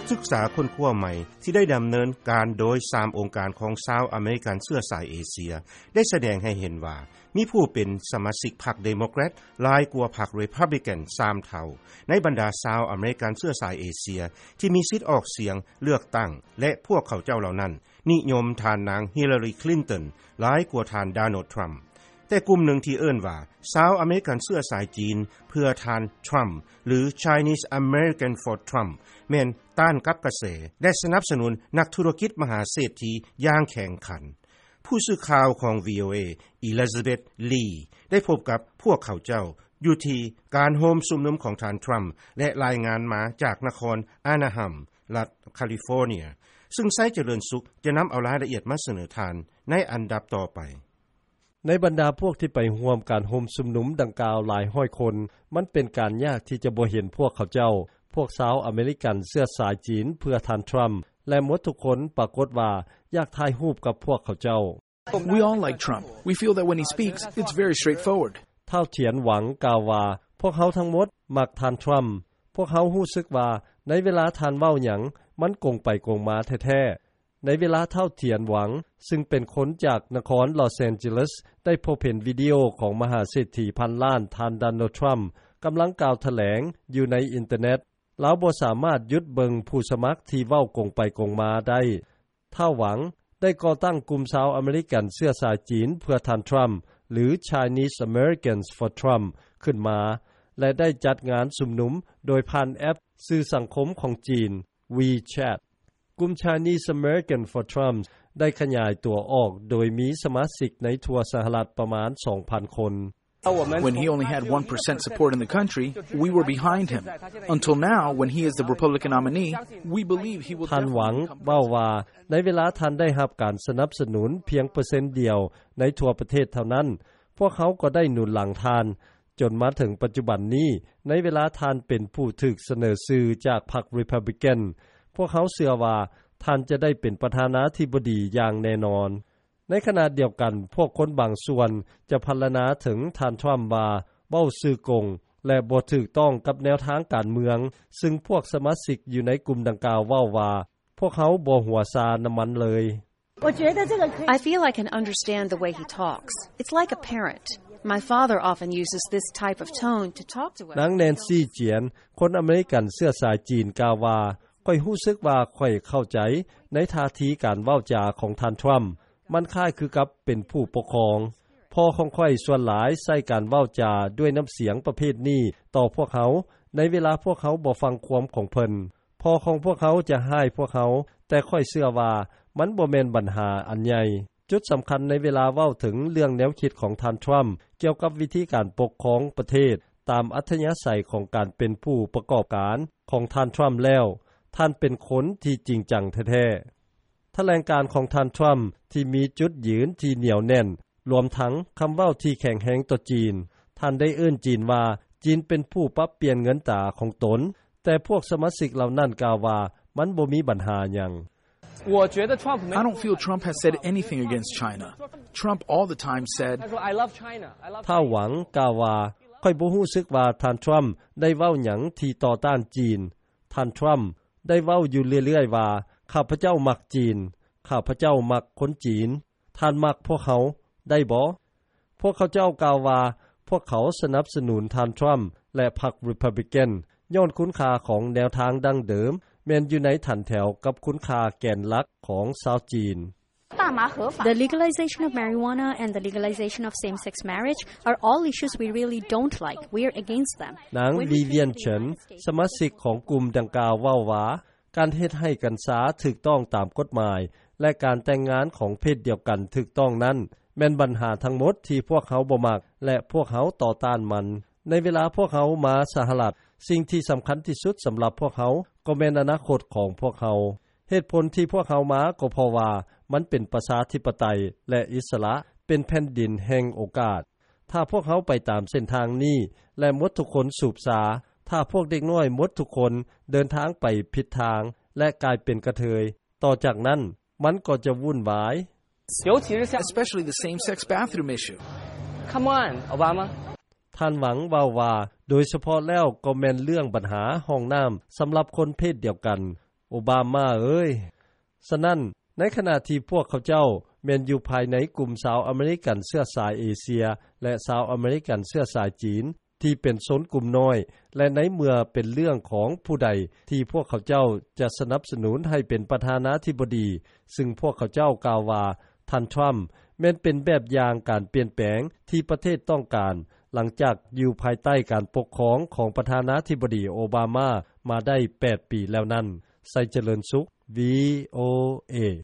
ສຶກສາຄົ້ນຄວ້າໃໝ່ທີ່ໄດ້ດຳເນີນການໂດຍສາມອົງການຂອງຊາວອາເມລິກັນເຊື້ອສາຍເອເຊຍ ໄດ້ສະແດງໃຫ້ເຫັນວ່າ ມີຜູ້ເປັນສະມາຊິກພັກເດໂມແຄຣດຫຼາຍກວ່າພັກຣີພັບບລິກັນສາມເທົ່າ ໃນບັນດາຊາວອາເມລິກັນເຊື້ອສາຍເອເຊຍ ທີ່ມີສິດອອກສຽງເລືອກຕັ້ງ ແລະ ພວກເຂົາເຈົ້າເຫຼົ່ານັ້ນ ນິຍົມທ່ານນາງຮິລາຣີ ຄລິນຕັນ ຫຼາຍກວ່າທ່ານ ໂດນັລ ທຣຳ. ແຕ່ກຸ່ມໜຶ່ງທີ່ເອີ້ນວ່າ ຊາວອາເມລິກັນເຊື້ອສາຍຈີນເພື່ອທ່ານ ທຣຳ ຫຼື Chinese American for Trump ແມ່ນຕ້ານກັບກະແສ ແລະ ສະໜັບສະໜູນນັກທຸລະກິດມະຫາເສດຖີຢ່າງແຂງຂັນ. ຜູ້ສື່ຂ່າວຂອງ ວີໂອເອ Elizabeth Lee ໄດ້ພົບກັບພວກເຂົາເຈົ້າຢູ່ທີ່ການໂຮມຊຸມນຸມຂອງທ່ານ ທຣຳ ແລະ ລາຍງານມາຈາກນະຄອນ ອານາຮາມ ລັດຄາລິຟໍເນຍ ຊຶ່ງໄຊຈະເລີນສຸກຈະນຳເອົາລາຍລະອຽດມາສະເໜີທ່ານໃນອັນດັບຕໍ່ໄປ. ໃນບັນດາພວກທີ່ໄປຮ່ວມການໂຮມຊຸມນຸມດັ່ງກ່າວຫຼາຍຮ້ອຍຄົນ, ມັນເປັນການຍາກທີ່ຈະບໍ່ເຫັນພວກເຂົາເຈົ້າ, ພວກຊາວອາເມລິກັນເຊື້ອສາຍຈີນເພື່ອທ່ານທຣຳ ແລະ ໝົດທຸກຄົນປາກົດວ່າຢາກຖ່າຍຮູບກັບພວກເຂົາເຈົ້າ. We all like Trump. We feel that when he speaks, it's very straightforward. ທ້າວ ທຽນຫວັງ ກ່າວວ່າ, ພວກເຮົາທັງໝົດມັກທ່ານທຣຳ. ພວກເຮົາຮູ້ສຶກວ່າໃນເວລາທ່ານເວົ້າຫຍັງ, ມັນກົງໄປກົງມາແທ້ໆ. ໃນເວລາທ້າວ ທຽນຫວັງ ຊຶ່ງເປັນຄົນຈາກນະຄອນລອສແອນເຈລີສ ໄດ້ພົບເຫັນວິດີໂອຂອງມະຫາເສດຖີພັນລ້ານ ທ່ານ ໂດນັລ ທຣຳ ກຳລັງກ່າວຖະແຫຼງຢູ່ໃນອິນເຕີເນັດ, ລາວບໍ່ສາມາດຢຸດເບິ່ງຜູ້ສະໝັກທີ່ເວົ້າກົງໄປກົງມາໄດ້. ທ້າວ ຫວັງ ໄດ້ກໍ່ຕັ້ງກຸ່ມຊາວອາເມລິກັນເຊື້ອສາຍຈີນເພື່ອທ່ານທຣຳ ຫຼື Chinese Americans for Trump ຂຶ້ນມາ ແລະ ໄດ້ຈັດງານຊຸມນຸມໂດຍຜ່ານແອັບສື່ສັງຄົມຂອງຈີນ WeChat. ກຸ່ມ Chinese American for Trump ໄດ້ຂະຫຍາຍຕົວອອກໂດຍມີສະມາຊິກໃນທົ່ວສະຫະລັດປະມານສອງພັນຄົນ. When he only had one percent support in the country, we were behind him. Until now, when he is the Republican nominee, we believe he will ທ່ານຫວັງ definitely become ເວົ້າ president. ວ່າ ໃນເວລາທ່ານໄດ້ຮັບການສະໜັບສະໜູນພຽງເປີເຊັນດຽວໃນທົ່ວປະເທດເທົ່ານັ້ນ, ພວກເຮົາກໍໄດ້ໜູນຫຼັງທ່ານ. ຈົນມາເຖິງປັດຈຸບັນນີ້, ໃນເວລາທ່ານເປັນຜູ້ຖືກສະເໜີຊື່ຈາກພັກຣີພັບບລິກັນ, ພວກເຮົາເຊື່ອວ່າທ່ານຈະໄດ້ເປັນປະທານາທິບໍດີຢ່າງແນ່ນອນ. ໃນຂະນະດຽວກັນ, ພວກຄົນບາງສ່ວນຈະພັນລະນາເຖິງທ່ານທຣຳວ່າເວົ້າຊື່ກົງ ແລະ ບໍ່ຖືກຕ້ອງກັບແນວທາງການເມືອງ, ຊຶ່ງພວກສະມາຊິກຢູ່ໃນກຸ່ມດັ່ງກ່າວເວົ້າວ່າ, ພວກເຮົາບໍ່ຫົວຊານຳມັນເລີຍ. I feel I can understand the way he talks. It's like a parent. My father often uses this type of tone to talk to us. ນາງ ແນນຊີ ຈຽນ ຄົນອາເມລິກັນເຊື້ອສາຍຈີນ ກ່າວວ່າ, ຂ້ອຍຮູ້ສຶກວ່າຂ້ອຍເຂົ້າໃຈໃນທ່າທີການເວົ້າຈາຂອງທ່ານທຣຳ. ມັນຄ້າຍຄືກັບເປັນຜູ້ປົກຄອງ. ພໍ່ຂອງຂ້ອຍສ່ວນຫຼາຍໃຊ້ການເວົ້າຈາດ້ວຍນ້ຳສຽງປະເພດນີ້ຕໍ່ພວກເຮົາ ໃນເວລາພວກເຮົາບໍ່ຟັງຄວາມຂອງເພິ່ນ. ພໍ່ຂອງພວກເຮົາຈະຮ້າຍພວກເຮົາ, ແຕ່ຂ້ອຍເຊື່ອວ່າມັນບໍ່ແມ່ນບັນຫາອັນໃຫຍ່. ຈຸດສຳຄັນໃນເວລາເວົ້າເຖິງເລື່ອງແນວຄິດຂອງທ່ານທຣຳ ກ່ຽວກັບວິທີການປົກຄອງປະເທດຕາມອັດທະຍາໄສຂອງການເປັນຜູ້ປະກອບການຂອງທ່ານທຣຳແລ້ວ, ທ່ານເປັນຄົນທີ່ຈິງຈັງແທ້ໆ. ຖະແຫຼງການຂອງທ່ານທຣຳທີ່ມີຈຸດຢືນທີ່ໜຽວແໜ້ນ, ລວມທັງຄຳເວົ້າທີ່ແຂງແຮງຕໍ່ຈີນ. ທ່ານໄດ້ເອີ້ນຈີນວ່າ ຈີນເປັນຜູ້ປັບປ່ຽນເງິນຕາຂອງຕົນ, ແຕ່ພວກສະມາຊິກເຫຼົ່ານັ້ນກ່າວວ່າ ມັນບໍ່ມີບັນຫາຫຍັງ. I don't feel Trump has said anything against China. Trump all the time said, ທ້າວ ຫວັງ ກ່າວວ່າ, ຂ້ອຍບໍ່ຮູ້ສຶກວ່າທ່ານທຣຳໄດ້ເວົ້າຫຍັງທີ່ຕໍ່ຕ້ານຈີນ. ທ່ານທຣຳໄດ້ເວົ້າຢູ່ເລື້ອຍໆວ່າ, ຂ້າພະເຈົ້າມັກຈີນ, ຂ້າພະເຈົ້າມັກຄົນຈີນ. ທ່ານມັກພວກເຮົາໄດ້ບໍ່? ພວກເຂົາເຈົ້າກ່າວວ່າ ພວກເຂົາສະໜັບສະໜູນທ່ານທຣຳ ແລະ ພັກຣີພັບບລິກັນ ຍ້ອນຄຸນຄ່າຂອງແນວທາງດັ້ງເດີມ ແມ່ນຢູ່ໃນຖັນແຖວກັບຄຸນຄ່າແກນຫຼັກຂອງຊາວຈີນ. The legalization of marijuana and the legalization of same-sex marriage are all issues we really don't like. We're against them. ນາງ ວິວຽນ ເຊີນ ສະມາຊິກຂອງກຸ່ມດັ່ງກ່າວເວົ້າວ່າ, ການເຮັດໃຫ້ກັນຊາຖືກຕ້ອງຕາມກົດໝາຍ ແລະ ການແຕ່ງງານຂອງເພດດຽວກັນຖືກຕ້ອງນັ້ນ ແມ່ນບັນຫາທັງໝົດທີ່ພວກເຮົາບໍ່ມັກ ແລະ ພວກເຮົາຕໍ່ຕ້ານມັນ. ໃນເວລາພວກເຮົາມາສະຫະລັດ, ສິ່ງທີ່ສຳຄັນທີ່ສຸດສຳລັບພວກເຮົາກໍແມ່ນອະນາຄົດຂອງພວກເຮົາ. ເຫດຜົນທີ່ພວກເຮົາມາກໍເພາະວ່າມັນເປັນປະຊາທິປະໄຕ ແລະ ອິດສະຫຼະ, ເປັນແຜ່ນດິນແຫ່ງໂອກາດ. ຖ້າພວກເຮົາໄປຕາມເສັ້ນທາງນີ້ ແລະ ໝົດທຸກຄົນສູບຊາ, ຖ້າພວກເດັກນ້ອຍໝົດທຸກຄົນເດີນທາງໄປຜິດທາງ ແລະ ກາຍເປັນກະເທີຍ, ຕໍ່ຈາກນັ້ນມັນກໍຈະວຸ່ນວາຍ. Especially the same-sex bathroom issue. Come on, Obama. ທ່ານຫວັງເວົ້າວ່າ, ໂດຍສະເພາະແລ້ວກໍແມ່ນເລື່ອງບັນຫາຫ້ອງນ້ຳສຳລັບຄົນເພດດຽວກັນ. ໂອບາມາເອີຍ. ສະນັ້ນ ໃນຂະນະທີ່ພວກເຂົາເຈົ້າ ແມ່ນຢູ່ພາຍໃນກຸ່ມຊາວອາເມລິກັນເຊື້ອສາຍເອເຊຍ ແລະຊາວອາເມລິກັນເຊື້ອສາຍຈີນ ທີ່ເປັນຊົນກຸ່ມນ້ອຍ ແລະໃນເມື່ອເປັນເລື່ອງຂອງຜູ້ໃດ ທີ່ພວກເຂົາເຈົ້າຈະສະໜັບສະໜູນໃຫ້ເປັນປະທານາທິບໍດີ ຊຶ່ງພວກເຂົາເຈົ້າກ່າວວ່າ ທ່ານທຣຳ ແມ່ນເປັນແບບຢ່າງການປ່ຽນແປງ ທີ່ປະເທດຕ້ອງການ ຫຼັງຈາກຢູ່ພາຍໃຕ້ການປົກຄອງ ຂອງປະທານາທິບໍດີໂອບາມາ ມາໄດ້ ແປດປີແລ້ວນັ້ນ. ໄຊຈະເລີນສຸກ ວີໂອເອ.